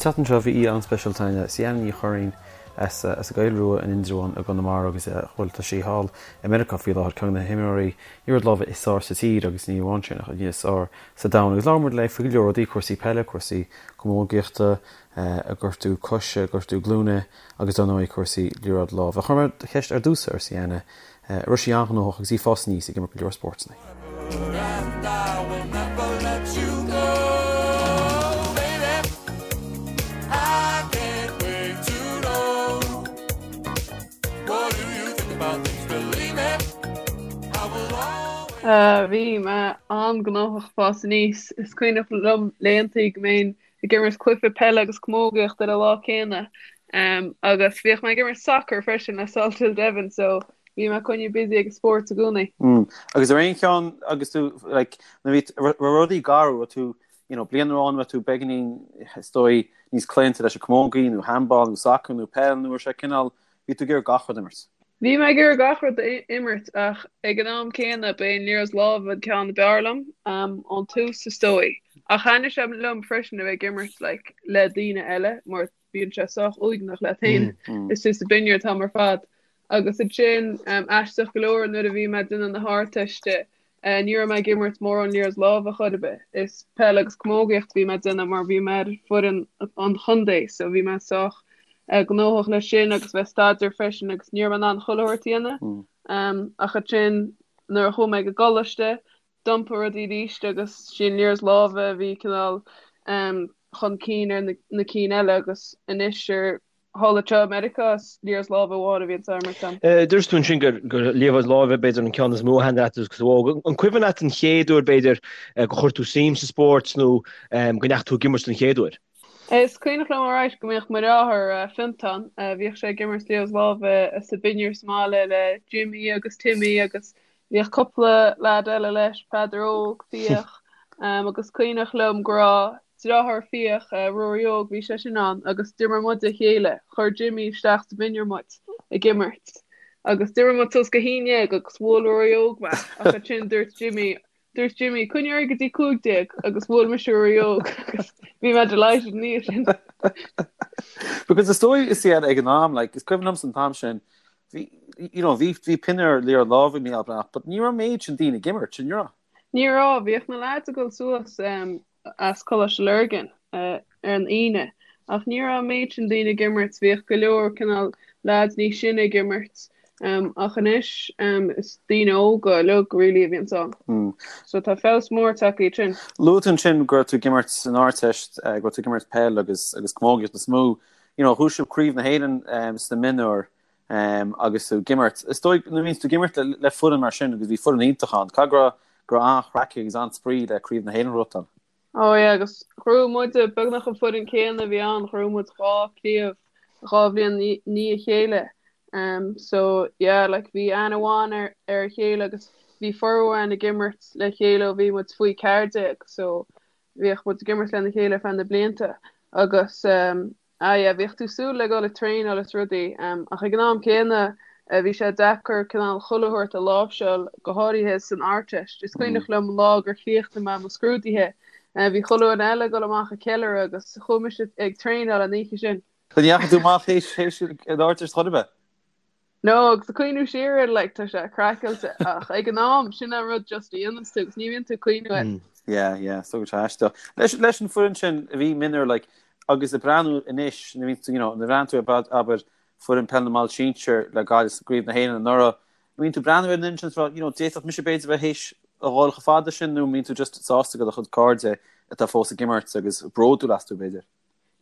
An tseachtain seo bhí aoi an-speisialta againn, Sianna Ní Churraoin as an gCoill Rua in Indreabhán i gConamara agus bhuel tá sí thall i Meiriceá faoi láthair, ceann de na himreoirí liathróid láimhe is fearr sa tír agus ní amháin sin ach is fearr sa domhan agus labhair muid léi faoi go leor rudaí, cúrsaí peile, cúrsaí camógaíochta, a gortú coise, gortú glúine agus dar ndóigh cúrsaí liathróid láimhe. Chuir mé ceist ar dtús ar Sianna an raibh sí an-ghnóthach agus í ag fás aníos ag imirt go leor spórtanna. Bhí mé an-ghnóthach ag fás aníos. Is cuimhneach liom laethantaí go mbeinn ag imirt cluiche peile agus camógaíocht ar an lá céanna. Agus bhíodh mé ag imirt sacair freisin le Salthill Devon so bhí mé coinnithe busy ag an spórt i gcónaí. Agus ar aon cheann agus tú like nuair bhí raibh rudaí garbh raibh tú you know bliain amháin raibh tú beagáinín is dóigh níos claonta leis an camógaí nó handball nó sacar nó peil nó raibh sé cineál bhí tú ag iarraidh gach rud a imirt. Bhí mé ag iarraidh gach rud a imirt ach ag an am céanna ba é an liathróid láimhe an ceann ab fhearr liom, ón tús is dóigh. Ach thaitnigh sé liom freisin a bheith ag imirt like le daoine eile mar bíonn sé sách uaigneach leat féin istigh sa binnear an t-am ar fad. Agus ansin, aisteach go leor nuair a bhí mé ag déanamh na hArdteiste, Ní raibh mé ag imirt mórán liathróid láimhe chor ar bith. Is peil agus camógaíocht a bhí mé ag déanamh mar bhí mé ar foireann an chontae so bhí mé sách gnóthach leis sin agus bheith ag staidéar freisin agus ní raibh mé in ann chuile shórt a dhéanamh. Ach ansin nuair a chuaigh mé ag an gcoláiste d'iompaigh rudaí arís agus sí an liathróid láimhe a bhí cineál chun cinn ar na cinn eile agus anois ar thall anseo i Meiriceá, is liathróid láimhe amháin a bhíonn á imirt agam. Dúirt tú ansin gur liathróid láimhe b'fhéidir an ceann is mó a thaitnigh leat agus tú óg. An cuimhin leat an chéad uair b'fhéidir gur chuir tú suim sa spórt nó go ndeachaigh tú ag imirt den chéad uair? Is cuimhneach liom alright go mbíodh mo dheartháir Fionntán, bhíodh sé ag imirt liathróid láimhe sa binnear sa mbaile le Jimmy agus Timmy agus Bhíodh cúpla leaid eile leis, Peadar Óg, Fiach, agus cuimhneach liom go raibh deartháir Fiach, Ruairí Óg, bhí sé sin ann agus d'imir muid a chéile, chuir Jimmy isteach sa bhinnear muid ag imirt agus d'imir muid suas go haon dhéag agus bhuail Ruairí Óg mé ach ansin dúirt Jimmy, dúirt Jimmy, coinnigh ar aghaidh go dtí 15 agus bhuail mise Ruairí Óg agus bhí mé delighted ina dhiaidh sin. Because is dóigh is iad ag an am, like, is cuimhin liomsa an t-am sin, Bhí, you know, bhí, bhí pinniúr liathróid láimhe Mícheál Breathnach, but ní raibh méid sin daoine ag imirt, an raibh? Ní raibh, bhíodh na lads ag dul suas as Coláiste Lurgan ar an Aoine, ach ní raibh an méid sin daoine ag imirt, bhíodh go leor cineál lads níos sine ag imirt, ach anois is daoine óga uilig really a bhíonns ann. So tá feabhas mór tagtha ansin. Luaigh tú ansin go raibh tú ag imirt san Ardteist, go raibh tú ag imirt peil agus agus camógaíocht is mó. You know, bhuaigh sibh Craobh na hÉireann sna mionúir agus tú ag imirt. Is dóigh nuair a bhíonns tú ag imirt le foireann mar sin agus bhí foireann iontach ann, caithfidh go raibh go raibh an-chraic agus an-spraoi le Craobh na hÉireann a ghnóthachtáil. Oh yeah, agus ghnóthaigh muid beagnach an foireann céanna a bhí ann, ghnóthaigh muid dhá chraobh dhá bhliain i ndiaidh a chéile. Um, so yeah, like bhí aithne mhaith ar ar a chéile agus bhí formhór againn ag imirt le chéile ó bhí muid faoi 14, so bhíodh muid ag imirt lena chéile ar feadh na blianta agus ah yeah bhíodh tú súil le dul ag traenáil is rudaí ach ag an am céanna bhí sé deacair cineál chuile shórt a láimhseáil go háirithe san Ardteist. Is cuimhneach liom an lá gur chríochnaigh mé mo scrúduithe bhí chuile dhuine eile ag dul amach ag ceiliúradh agus chuaigh mise ag traenáil an oíche sin. Ní dheachaigh tú amach théis an Ardteist chor ar bith? No, agus ag cuimhniú siar air, like, tá sé craiceáilte, ach ag an am, sin an rud just a dhéananns tú, agus ní bhíonn tú ag cuimhniú air. Yeah, yeah, so go aisteach. Leis, leis an foireann sin a bhí mionúir, like, agus ag breathnú anois, nuair a bhíonn tú, you know, nuair a bhreathnaíonn tú ar, abair, foireann peil na mball sinsir le Gaillimh sa gCraobh na hÉireann anuraidh, an mbíonn tú ag breathnú ar an fhoireann sin is ag rá, you know, d'fhéadfadh mise b'fhéidir bheith théis a dhul chomh fada sin nó an mbíonn tú just sásta go do chuid cairde atá fós ag imirt agus bródúil astu b'fhéidir?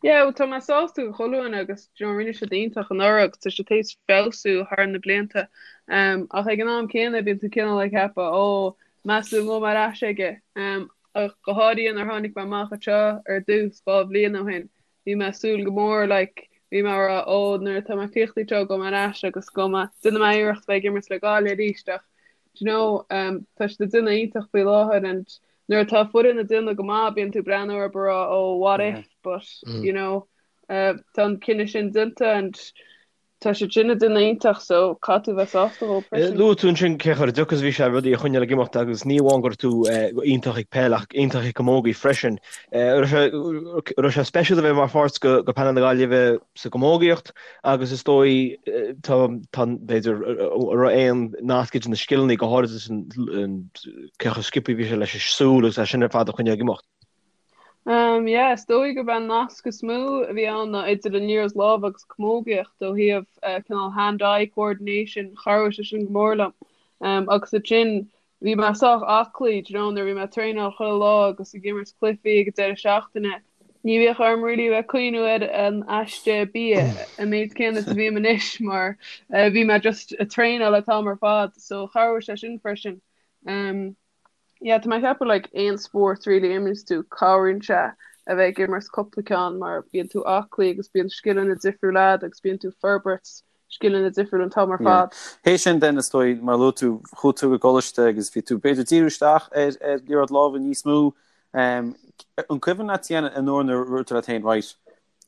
Yeah, well tá mé sásta do chuile dhuine agus do you know, rinne siad iontach anuraidh agus tá siad théis feabhsú thar na blianta. Um, ach ag an am céanna bíonn tú cineál ag ceapadh, ó, meas tú an ngabhfaidh mé ar ais aige. Um, ach go háirithe nuair tháinig mé amach anseo ar dtús 2 bhliain ó shin, bhí mé ag súil go mór, like, bhí mé ag rá, ó, nuair atá mé críochnaithe anseo, gabhfaidh mé ar ais agus gabhfaidh mé, déanfaidh mé iarracht bheith ag imirt le Gaillimh arís ach, do you know, um, tá siad ag déanamh iontach faoi láthair and Nuair atá foireann ag déanamh go maith bíonn tú ag breathnú orthu ag rá oh what if but you know tá an cinneadh sin déanta and Tá siad sin ag déanamh iontach so caithfidh tú bheith sásta dhóibh freisin. Luaigh tú ansin cé chomh deacair is a bhí sé rudaí a choinneáil ag imeacht agus ní amháin go raibh tú iontach ag peil ach iontach ag camógaí freisin. An raibh sé speisialta a bheith mar pháirt de panel na Gaillimhe sa gcamógaíocht agus is dóigh tá tá b'fhéidir raibh aon nasc idir na scileanna go háirithe cé chomh sciobtha a bhí sé leis an súil agus é sin ar fad a choinneáil ag imeacht. Um yeah, is dóigh gurb é an nasc is mó a bhí ann ná idir an liathróid láimhe agus camógaíocht ó thaobh eh, cineál hand-eye coordination, chabhraigh sé sin go mór liom. Um, agus ansin bhí mé sách aclaí, do you know, nuair a bhí mé ag traenáil chuile lá agus ag imirt cluichí ag an deireadh seachtaine, ní bhíodh orm really a bheith ag cuimhniú ar an aiste bia an méid céanna is a bhím anois mar eh, bhí mé just ag traenáil an t-am ar fad, so chabhraigh sé sin freisin. Um, Yeah, tá mé ag ceapadh like aon spórt really a imríonns tú, cabhraíonn sé a bheith ag imirt cúpla ceann mar bíonn tú aclaí agus bíonn scileanna difriúla agat agus bíonn tú ag forbairt scileanna difriúla an t-am ar Yeah. fad. Théis sin then is dóigh mar a luaigh tú, chuaigh tú go coláiste agus bhí tú b'fhéidir díriú isteach ar ar liathróid láimhe níos mó. Um, an cuimhin leat féin an uair nuair a dúirt tú leat féin, right,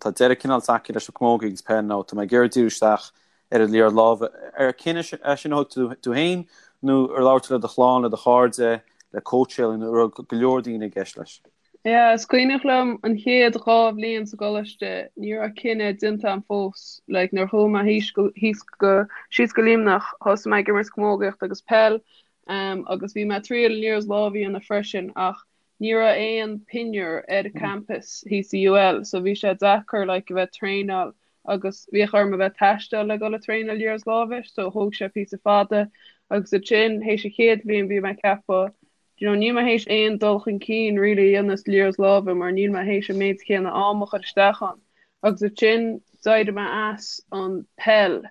Tá deireadh cineál tagtha leis an camógaí agus peil nó tá mé ag iarraidh díriú isteach ar an liathróid láimhe. Ar cinneadh é sin a thug tú tú féin nó ar labhair tú le do chlann, le do chairde, le cóitseálaí nó an raibh go leor daoine i gceist leis? Yeah, is cuimhneach liom an chéad 2 bhliain sa gcoláiste, ní raibh cinneadh déanta agam fós. Like, nuair a chuaigh mé thíos go, thíos go, síos go Luimneach, thosaigh mé ag imirt camógaíocht agus peil, um, agus bhí mé ag triail an liathróid láimhe a dhéanamh freisin ach Ní raibh aon pinniúr ar an campus thíos i UL so bhí sé deacair like a bheith traenáil agus bhíodh orm a bheith taisteal le dul ag traenáil liathróid láimhe so thóg sé píosa fada agus ansin théis an chéad bhliain bhí mé ag ceapadh do you know níl mé théis aon dul chun cinn really a dhéanamh sa liathróid láimhe mar níl mé théis an méid céanna am a chur isteach ann agus ansin d'éirigh mé as an peil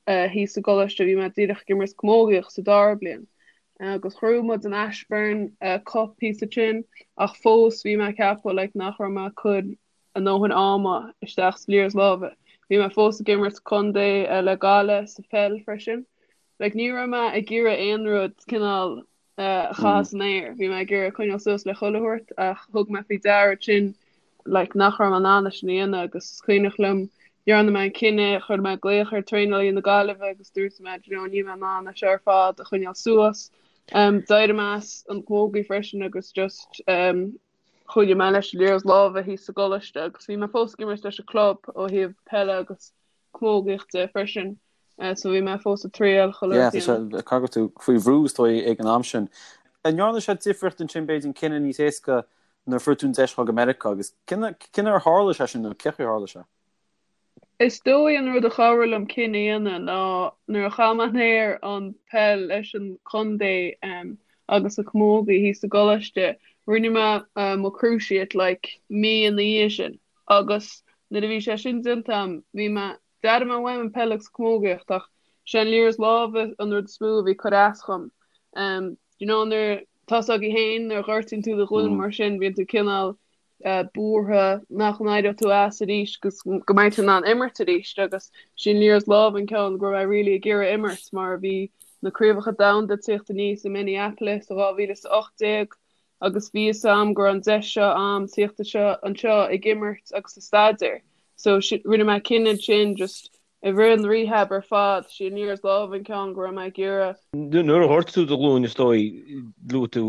thíos sa gcoláiste bhí mé díreach ag imirt camógaíocht sa dara bliain agus ghnóthaigh muid an Ashbourne Cup píosa ansin ach fós bhí mé ag ceapadh like nach raibh mé ag cur a ndóthain ama isteach sa liathróid láimhe. Bhí mé fós ag imirt contae le Gaillimh sa pheil freisin. Like ní raibh mé ag iarraidh aon rud cineál a chaitheamh san aer. Bhí mé ag iarraidh coinneáil suas le chuile shórt ach thug mé faoi deara ansin like nach raibh mé in ann é sin a dhéanamh agus is cuimhneach liom dhearna mé an cinneadh, chuir mé glaoch ar traenálaí na Gaillimhe agus dúirt mé do you know níl mé in ann é seo ar fad a choinneáil suas. Um, d'éirigh mé as an chamógaí freisin agus just um, choinnigh mé leis an liathróid láimhe thíos sa gcoláiste agus bhí mé fós ag imirt leis an club ó thaobh peile agus camógaíochta freisin. Uh, so bhí mé fós ag triail chuile Yeah, tá sé caithfidh go raibh tú faoi bhrú is dóigh ag an am sin. An ndearna sé difríocht ansin b'fhéidir an cinneadh níos éasca nuair a fuair tú an deis dhul go Meiriceá agus cén uair a tharla sé sin nó cén chaoi a tharla sé? Is dóigh an rud a chabhraigh liom cinneadh a dhéanamh ná nuair a chaith mé in aer an peil leis an chontae agus an chamógaí thíos sa gcoláiste, rinne mé mo cruciate like mí ina dhiaidh sin agus nuair a bhí sé sin déanta agam bhí mé D'airigh mé uaim an peil agus camógaíocht ach sé an liathróid láimhe an rud is mó a bhí ag cur as dhom. Do you know nuair tá's agaibh féin nuair a ghortaíonn tú do ghlúin mar sin bíonn tú cineál buartha nach n-éireoidh tú as arís agus go mbeidh tú in ann imirt arís agus sí an liathróid láimhe an ceann go raibh mé really ag iarraidh imirt mar bhí na craobhacha domhanda ag tíocht aníos i Minneapolis i 2018 agus bhí fhios a'm go raibh an deis seo a'm tíocht anseo anseo ag imirt agus ag staidéar so rinne mé cinneadh ansin just i rith an rehab ar fad sí an liathróid láimhe an ceann go raibh mé ag iarraidh. Nuair a ghortaigh tú do ghlúin is dóigh luaigh tú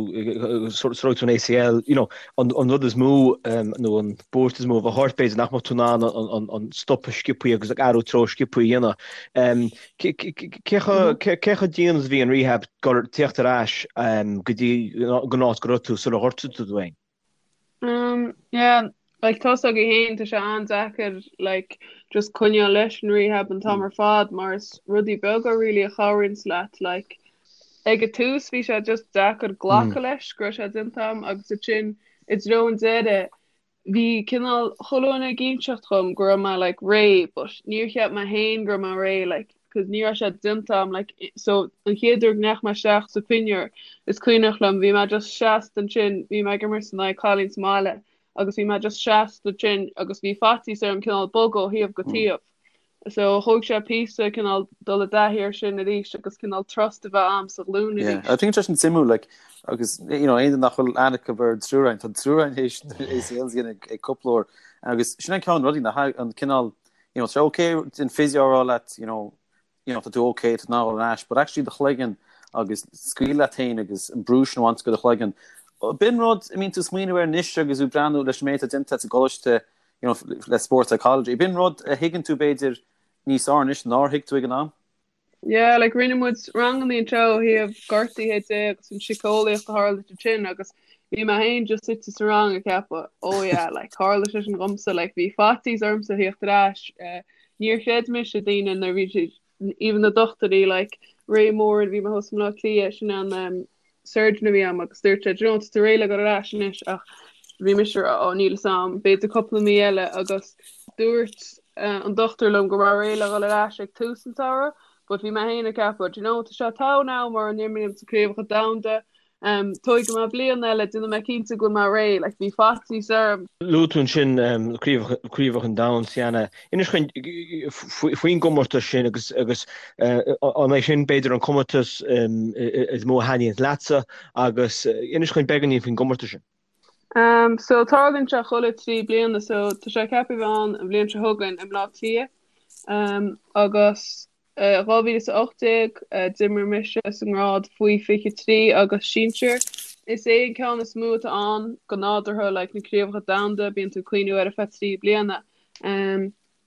sort of an ACL you know an rud is mó nó an buairt is mó a bheadh ort b'fhéidir nach mbeadh tú in ann an stopadh sciobthaí agus ag athrú treo sciobthaí a dhéanamh. Cé chomh dian is a bhí an rehab gur tíocht ar ais go dtí an áit go raibh tú sular ghortaigh tú tú féin? Yeah, like tá's agaibh féin tá sé an-deacair like just coinneáil leis an rehab an t-am ar fad mar is rudaí beaga really a chabhraíonns leat like ag an tús bhí sé just deacair glacadh leis go raibh sé déanta agam agus ansin i dtreo an deireadh bhí cineál chuile dhuine ag inseacht dhom go raibh mé like réidh but níor cheap mé féin go raibh mé réidh like cause ní raibh sé déanta agam like so an chéad uair go ndeachaigh mé isteach sa pinniúr is cuimhneach liom bhí mé just seasta ansin bhí mé ag imirt in aghaidh cailín sa mbaile agus bhí mé just seasta ansin agus bhí faitíos orm cineál bogadh ó thaobh go taobh So thóg sé píosa cineál dul i dtaithí air sin arís agus cineál trust a bheith a'm sa ghlúin Yeah, I arís. think tá sin suimiúil like agus you know aon duine nach bhfuil aithne acu ar an triúr againn, tá an triúr againn théis ACLs a dhéanamh ag cúpla uair agus sin an ceann rudaí nach an cineál you know, tá sé okay an physio a rá leat, you know, you know, tá tú okay, tá tú in ann dul ar ais, but actually do chloigeann agus scaoileadh leat féin agus an brú sin a bhaint de do chloigeann. B'in rud a mbíonn tú ag smaoineamh air anois agus tú ag breathnú leis an méid atá déanta agat sa gcoláiste, you know, le sports psychology. B'in rud a thuigeann tú b'fhéidir níos fearr anois nár thuig tú ag an am. Yeah, like rinne muid ranganna anseo ó thaobh gortuithe de agus an síceolaíocht a tharla ansin agus bhí mé féin just suite sa rang ag ceapadh, oh yeah, like tharla sé sin dhomsa, like bhí faitíos ormsa theacht ar ais, eh, níor chreid mise daoine nuair bhí siad, even na dochtúirí, like Ray Moore, bhí mé thuas i mBleá Cliath, sin an um, surgeon a bhí a'm agus dúirt sé, do you know, tá tú réidh le dul ar ais anois ach bhí mise ag rá, oh níl fhios a'm, b'fhéidir cúpla mí eile agus dúirt uh, an dochtúir liom go raibh réidh le dhul ar ais ag tús an tsamhraidh but bhí mé féin ag ceapadh, do you know, tá sé togha an am mura n-imrím sa craobhacha domhanda, um, tógfaidh mé bliain eile, déanfaidh mé cinnte go bhfuil mé réidh, like bhí faitíos orm. Luaigh tú ansin um, craobhacha an domhain Sienna. Inis dhúinn faoin gcomórtas sin agus agus an é sin b'fhéidir an comórtas is mó a thaitníonn leatsa agus inis dhúinn beagáinín faoin gcomórtas sin. Um, so tarlaíonn sé chuile 3 bliana so tá sé ceaptha a bheith ann an bhliain seo chugainn i mBleá Cliath um, agus 2018, d'imir mise sa ngrád faoi 23 agus sinsir. Is é an ceann is mó atá ann go nádúrtha, like na craobhacha domhanda, bíonn tú ag cuimhniú air ar feadh 3 bliana.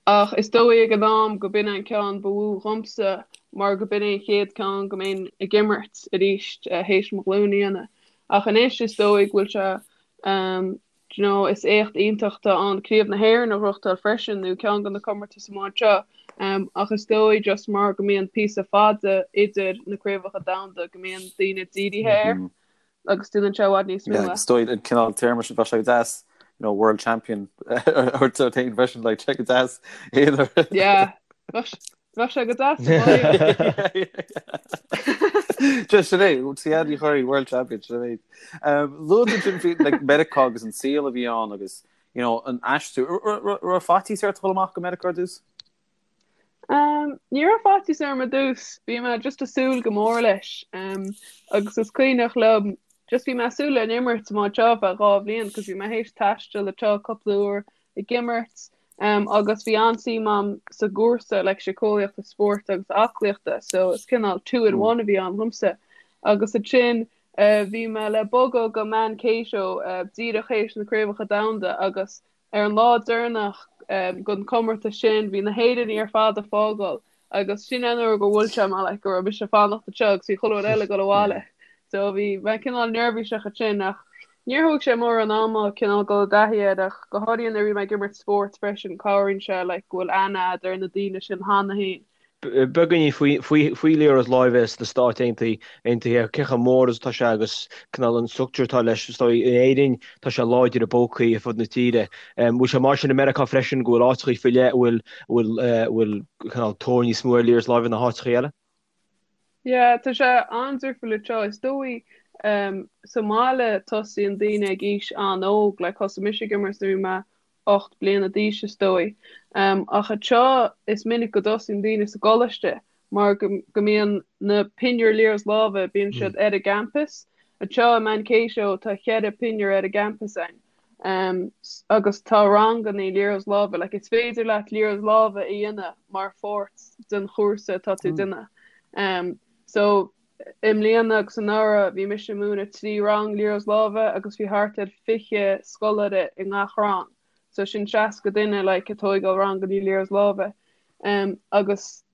Ach is dóigh ag an am go b'in an ceann ba mhó dhomsa mar go b'in é an chéad ceann go mbeinn ag imirt arís théis mo ghlúin a dhéanamh. Ach anois is dóigh go bhfuil sé Do you know, is éacht iontach atá ann Craobh na hÉireann a ghnóthachtáil freisin, nó ceann de na comórtais amach anseo, ach is dóigh just mar go mbíonn píosa fada idir na craobhacha domhanda go mbíonn daoine dírithe air agus déanann sé i bhfad níos mó. Yeah, is dóigh an cineál téarma sin bheadh sé go deas, you know, world champion a thabhairt ort féin freisin, like, sé go deas. Yeah, Bheadh sé go deas sa bhaile. Just sin é, Sienna Ní Churraoin, World Champion, sin é. Luaigh tú ansin faoi like, Meiriceá agus an saol a bhí ann agus you know, an aistriú. Raibh faitíos ort dul amach go Meiriceá ar dtús? Um, ní raibh faitíos orm ar dtús, bhí mé just ag súil go mór leis. Um, agus is cuimhneach liom, just bhí mé ag súil le an imirt amach anseo ar feadh 2 bhliain, cos bhí mé théis taisteal anseo cúpla uair ag imirt agus bhí an-suim a'm sa gcúrsa like síceolaíochta spóirt agus aclaíochta so is cineál two in one a bhí ann dhomsa. Agus ansin bhí mé le bogadh go Mankato díreach théis na Craobhacha Domhanda agus ar an lá deireanach den chomórtas sin bhí na hÉireannaigh ar fad ag fágáil Agus sin an uair gur bhuail sé mé like go raibh mise ag fanacht anseo agus bhí chuile dhuine eile ag dul abhaile. So bhí mé cineál neirbhíseach ansin ach níor thóg sé mórán ama cineál dul i dtaithí air ach go háirithe nuair a bhí mé ag imirt spóirt freisin cabhraíonn sé like go bhfuil aithne a'd ar na daoine sin cheana féin. Beagáinín faoi liathróid láimhe sna Stáit Aontaithe, cé chomh mór is atá sé agus cineál an structúr atá leis, is dóigh in Éirinn tá sé láidir i bpócaí ar fud na tíre. Bhfuil sé mar sin i Meiriceá freisin go bhfuil áiteachaí faoi leith a bhfuil bhfuil cineál tóir níos mó ar liathróid láimhe ná háiteachaí eile? Yeah, tá sé an-difriúil anseo. Is dóigh sa mbaile tosaíonn daoine ag aois an-óg, like thosaigh mise ag imirt nuair a bhí mé 8 bliana d'aois is dóigh. Ach anseo is minic go dtosaíonn daoine sa gcoláiste mar go mbíonn na pinniúir liathróid láimhe, bíonn siad ar an gcampus. Anseo i Mankato tá cheithre pinniúr ar an gcampus againn. Agus tá ranganna liathróid láimhe, like is féidir leat liathróid láimhe a dhéanamh mar pháirt den chúrsa atá tú ag déanamh. So i mbliana agus anuraidh bhí mise ag múineadh 3 rang liathróid láimhe agus bhí thart ar 20 scoláire i ngach rang. So sin 60 duine like ag tóigeáil ranganna liathróid láimhe. Agus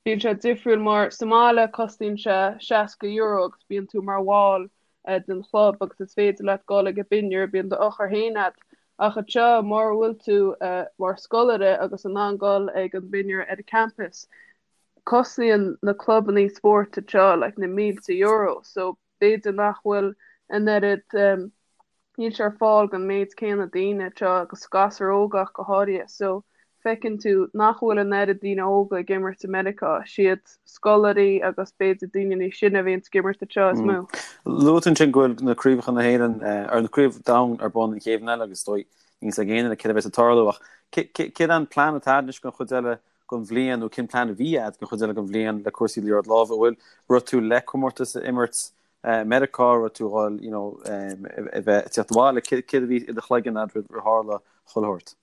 Bíonn sé difriúil mar sa mbaile cosnaíonn sé €60 agus bíonn tú mar bhall den chlub agus is féidir leat dul ag an bpinniúr, bíonn d'eochair féin agat. Ach anseo mura bhfuil tú mar scoláire agus in ann dul ag an bpinniúr ar an campus, cosnaíonn na clubanna spóirt anseo like na mílte euro so b'fhéidir nach bhfuil an oiread, níl sé ar fáil don méid céanna daoine anseo agus gasúir óga ach go háirithe. So feiceann tú nach bhfuil an oiread daoine óga ag imirt i Meiriceá, siad scoláirí agus b'fhéidir daoine níos sine a bhíonns ag imirt anseo is mó. Luaigh tú ansin go bhfuil na craobhacha na hÉireann, ar na craobh domhain ar bun an chéad bhliain eile agus is dóigh níl fhios ag aon duine céard a bheas ag tarlú ach céard an plean atá agat anois don chuid eile den bhliain nó cén plean a bhí agat don chuid eile den bhliain le cúrsaí liathróid láimhe? An bhfuil raibh tú le comórtas a imirt i Meiriceá, raibh tú dhul you know a bheith ag tíocht abhaile, céard a bhí i do chloigeann agat roimh ar tharla chuile shórt?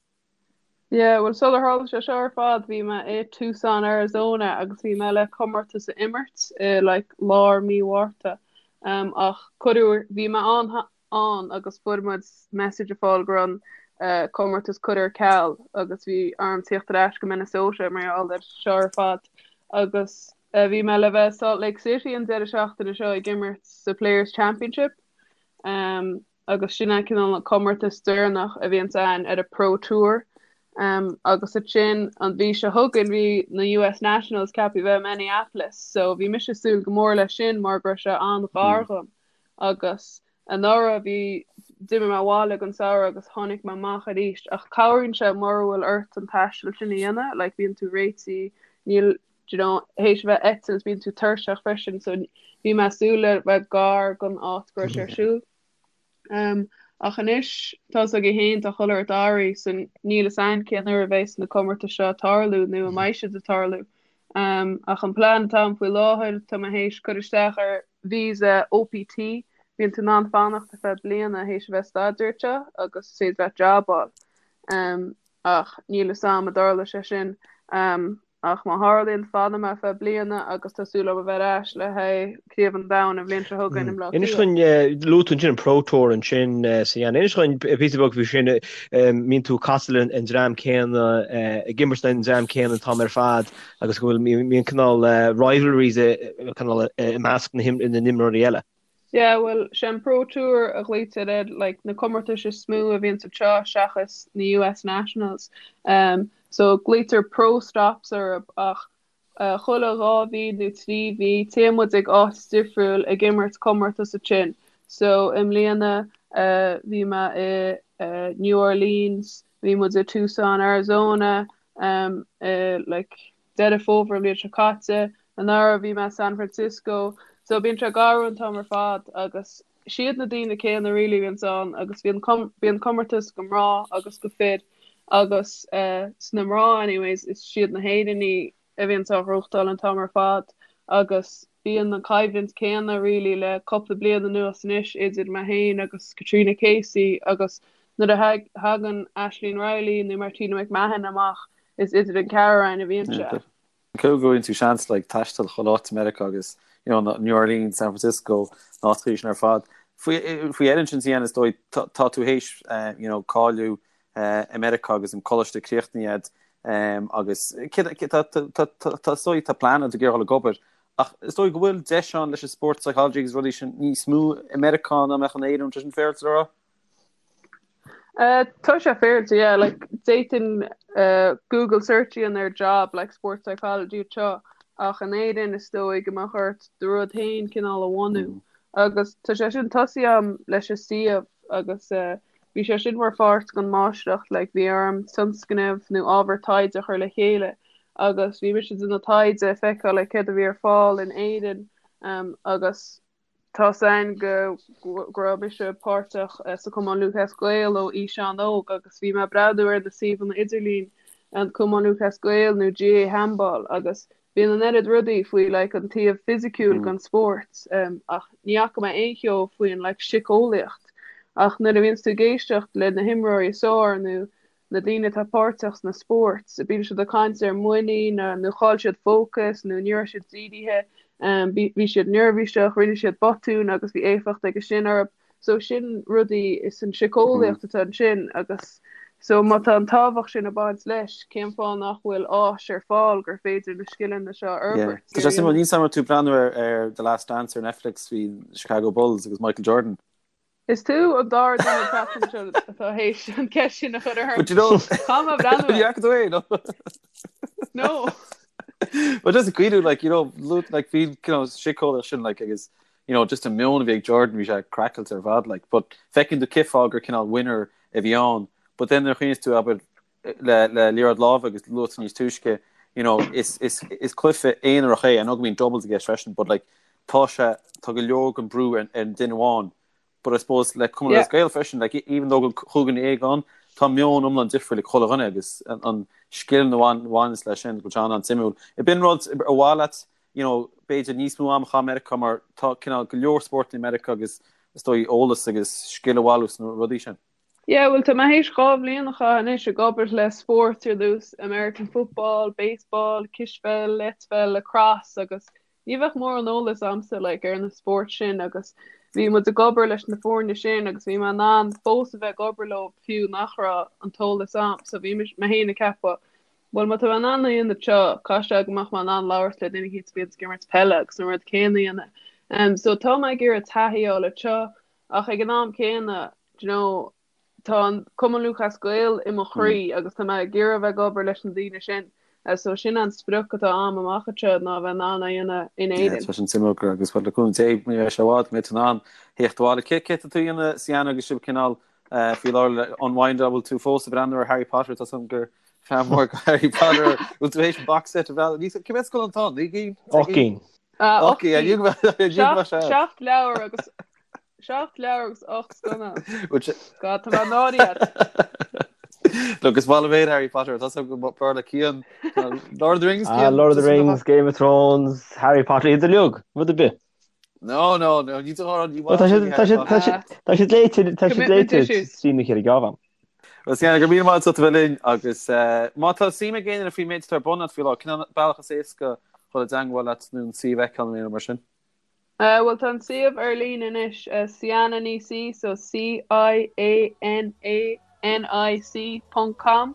Yeah, bhuel sular tharla sé seo ar fad bhí mé i Tucson, Arizona agus bhí mé le comórtas a imirt i like lár mí Mhárta. Um, ach cuireadh, bhí mé ann ann agus fuair muid message a fáil go raibh an uh, comórtas curtha ar ceal agus bhí orm tíocht ar ais go Minnesota mar gheall ar seo ar fad agus uh, bhí mé le bheith i Salt Lake City an deireadh seachtaine seo ag imirt sa Players Championship. Um, agus sin é cineál an comórtas deireanach a bhíonns ann ar an Pro Tour. Agus ansin an mhí seo chugainn bhí na US Nationals ceaptha bheith i Minneapolis so bhí mise ag súil go mór leis sin mar go raibh sé an-ghar dhom agus anuraidh bhí d'imigh mé abhaile don samhradh agus tháinig mé amach arís ach cabhraíonn sé mura bhfuil ort an taisteal sin a dhéanamh like bíonn tú réitithe níl do you know théis a bheith ag eitilt bíonn tú tuirseach freisin so bhí mé ag súil le bheith gar don áit go raibh sé ar siúl. Um, ach anois tá's agaibh féin tá chuile shórt athraithe so níl fhios a'inn cén uair a bheas na comórtais seo ag tarlú nó an mbeidh siad ag tarlú. Um, ach an plean atá a'm faoi láthair tá mé théis cur isteach ar visa OPT bíonn tú in ann fanacht ar feadh bliana théis a bheith ag staidéar anseo agus is féidir leat job a fháil. Um, ach níl fhios a'm an dtarlóidh sé sin. Um, Ach má tharlaíonn, fanfaidh mé ar feadh bliana agus tá súil agam a bheith ar ais le haghaidh Craobh an Domhain an bhliain seo chugainn i mBleá Inis Cliath. dúinn, luaigh tú ansin an Pro Tour ansin Sian. Inis dúinn píosa beag faoi sin, mbíonn tú ag casadh le an dream céanna, ag imirt le an dream céanna an t-am ar fad agus go bhfuil, mbíonn cineál rivalries cineál i measc na n-imreoirí eile. Yeah, bhuel, sé an Pro Tour a ghlaoitear ar like na comórtais is mó a bhíonns anseo seachas na US Nationals. Um, so glaoitear Pro Stops orthu ach uh, chuile 2 mhí nó 3 mhí téann muid ag áit difriúil ag imirt comórtas ansin. So i mbliana uh, bhí mé i uh, New Orleans, bhí muid i Tucson, Arizona, um, i like Deireadh Fómhair an bhliain seo caite. Anuraidh bhí mé i San Francisco. So bíonn sé ag athrú an t-am ar fad agus siad na daoine céanna really a bhíonns ann agus bíonn bíonn comórtas go mná agus go fir agus eh sna mná anyways is siad na hÉireannaigh a bhíonns á ghnóthachtáil an t-am ar fad agus bíonn an coimhlint céanna really le cúpla bliain anuas anois idir mé féin agus Katrina Casey agus nuair a thagann Aisling Reilly nó Martina McMahon amach Is idir an ceathrar againn a bhíonn sé. Cé go bhfaigheann tú seans like taisteal chuile áit i Meiriceá agus you know New Orleans, San Francisco, na háiteacha sin ar fad. Faoi faoi dheireadh ansin Sian is dóigh tá tá tú théis you know cáiliú i Meiriceá agus an coláiste críochnaithe a'd agus cé tá tá tá tá is dóigh tá plean a'd ag iarraidh dul ag obair ach is dóigh go bhfuil deis ann leis an sport psychology agus rudaí sin níos mó i Meiriceá ná mbeadh in Éirinn, tá sin féaráilte le rá? Tá sé féaráilte, yeah, like d'fhéadfainn Google search a dhéanamh ar job like sports psychology anseo ach in Éirinn is dóigh go mbeadh ort do rud féin cineál a bhunú agus tá sé sin tosaithe a'm leis an suíomh agus bhí sé sin mar pháirt den máistreacht like bhí orm tionscnamh nó ábhar taighde a chur le chéile agus bhí mise ag déanamh taighde ag feiceáil like céard a bhí ar fáil in Éirinn agus Tá's a'inn go go raibh mise páirteach sa Cumann Lúthchleas Gael ó aois an-óg agus bhí mé ag breathnú ar na suíomhanna idirlín, an Cumann Lúthchleas Gael nó GAA Handball agus bíonn an oiread rudaí faoi like an taobh fisiciúil den spórt ach ní fhaca mé aon cheo faoin like siceolaíocht ach nuair a bhíonns tú ag éisteacht le na himreoirí is fearr nó na daoine atá páirteach sna spóirt, bíonn siad ag caint ar muinín nó chaill siad fócas nó ní raibh siad dírithe, bhí siad neirbhíseach, rinne siad botún agus bhí éifeacht aige sin orthu. So sin rudaí is an siceolaíocht atá ansin agus so má tá an tábhacht sin ag baint leis, cén fáth nach bhfuil áis ar fáil gur féidir na scileanna seo a fhorbairt? Tá sé suimiúil, níl 's a'm an raibh tú ag breathnú ar The Last Dance ar Netflix faoi Chicago Bulls agus Michael Jordan. Is tú an dara duine an tseachtain seo atá théis an ceist sin a chur orm. But you know, Caithfidh mé breathnú air. Ní fhaca tú é, no? No. But just cuidiú, like, you know, like, bhí, you know, siceolaíocht sin, like, agus, you know, just an meon a bhí ag Jordan, bhí sé craiceáilte ar fad, like, but feiceann tú cén fáth gur cineál winner a bhí ann, but then nuair a chuimhníos tú, abair, le, le liathróid láimhe agus luaigh tú níos túisce, you know, is, is, is cluiche aonarach é, I know go mbíonn doubles i gceist freisin, but like, tá sé, tá go leor den brú ar, ar an duine amháin, but I suppose le Cumann Yeah. Gael freisin, like, even though go chúig dhuine ann, tá meon iomlán difriúil ag chuile dhuine agus an, an scil a bhain, bhaineas leis sin, go bhfuil sé an-suimiúil. Ab in rud ar mhaith leat, you know, b'fhéidir níos mó am a chaitheamh i Meiriceá mar tá cineál go leor spórt i Meiriceá agus is dóigh eolas agus scil a bhailiú sna rudaí sin. Yeah, bhuel tá mé théis 2 bhliain a chaitheamh anois ag obair le spóirt ar nós American football, baseball, cispheil, eitpheil, lacrosse agus ní bheadh mórán eolas a'msa like ar na spóirt sin agus bhí muid ag obair leis na foirne sin agus bhí mé in ann fós a bheith ag obair leo fiú nach raibh an t-eolas a'm so bhí mé féin ag ceapadh bhuel má tá mé in ann a dhéanamh seo caithfidh sé go mbeadh mé in ann labhairt le duine éicint a bhíonn ag imirt peile agus an rud céanna a dhéanamh. Um, so tá mé ag iarraidh taithí a fháil anseo ach ag an am céanna do you know Tá an Cumann Lúthchleas Gael i mo chroí agus tá mé ag iarraidh a bheith ag obair leis na daoine sin. So sin an sprioc atá a'm amach anseo ná a bheith in ann é a dhéanamh in Éirinn. Tá sin suimiúil agus le cúnamh Dé ní bheidh sé i bhfad go mbeidh tú in ann theacht abhaile. Cé cé tá tú a dhéanamh Ciana agus sibh cineál faoi láthair le unwind an bhfuil tú fós ag breathnú ar Harry Potter tá 's a'm gur fan mór go Harry Potter bhfuil tú théis an box set a bhreathnú Ní cé mhéad scannán atá ann? 9 gcinn? 8 gcinn. 8 gcinn. 7 leabhar agus 7 leabhar agus 8 scannán. God, tá mé náirithe. Look, is maith liom féin Harry Potter, tá go b'fhearr le Cian. Lord of the Rings, Cian? Ah, Lord of the Rings, Game of Thrones, Harry Potter, iad uilig, rud ar bith. No, no, no, ní ní Tá siad tá siad tá siad tá siad léite tá siad léite trína chéile geábh. Well, Cian, go raibh míle maith agat as a bheith linn agus má tá suim ag éinne faoin méid atá ar bun agat faoi láthair, cén bealach is éasca dhul i dteangmháil leat nó an suíomh a fheiceáil nó mar sin? Bhuel tá an suíomh ar líne anois, Ciana Ní C, so C-I-A-N-A-N-I-C ponc com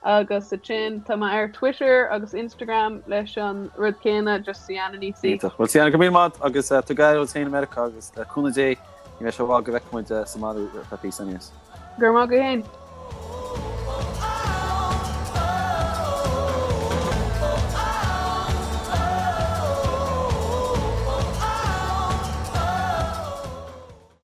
agus ansin tá mé ar Twitter agus Instagram leis an rud céanna, just Ciana Ní C. Iontach. Bhuel Ciana, go raibh míle maith agat agus tóg aire duit féin i Meiriceá agus le cúnamh Dé ní bheidh sé i bhfad go bhfeicfidh muid sa mbaile ar feadh píosa aníos. Go raibh maith agat féin.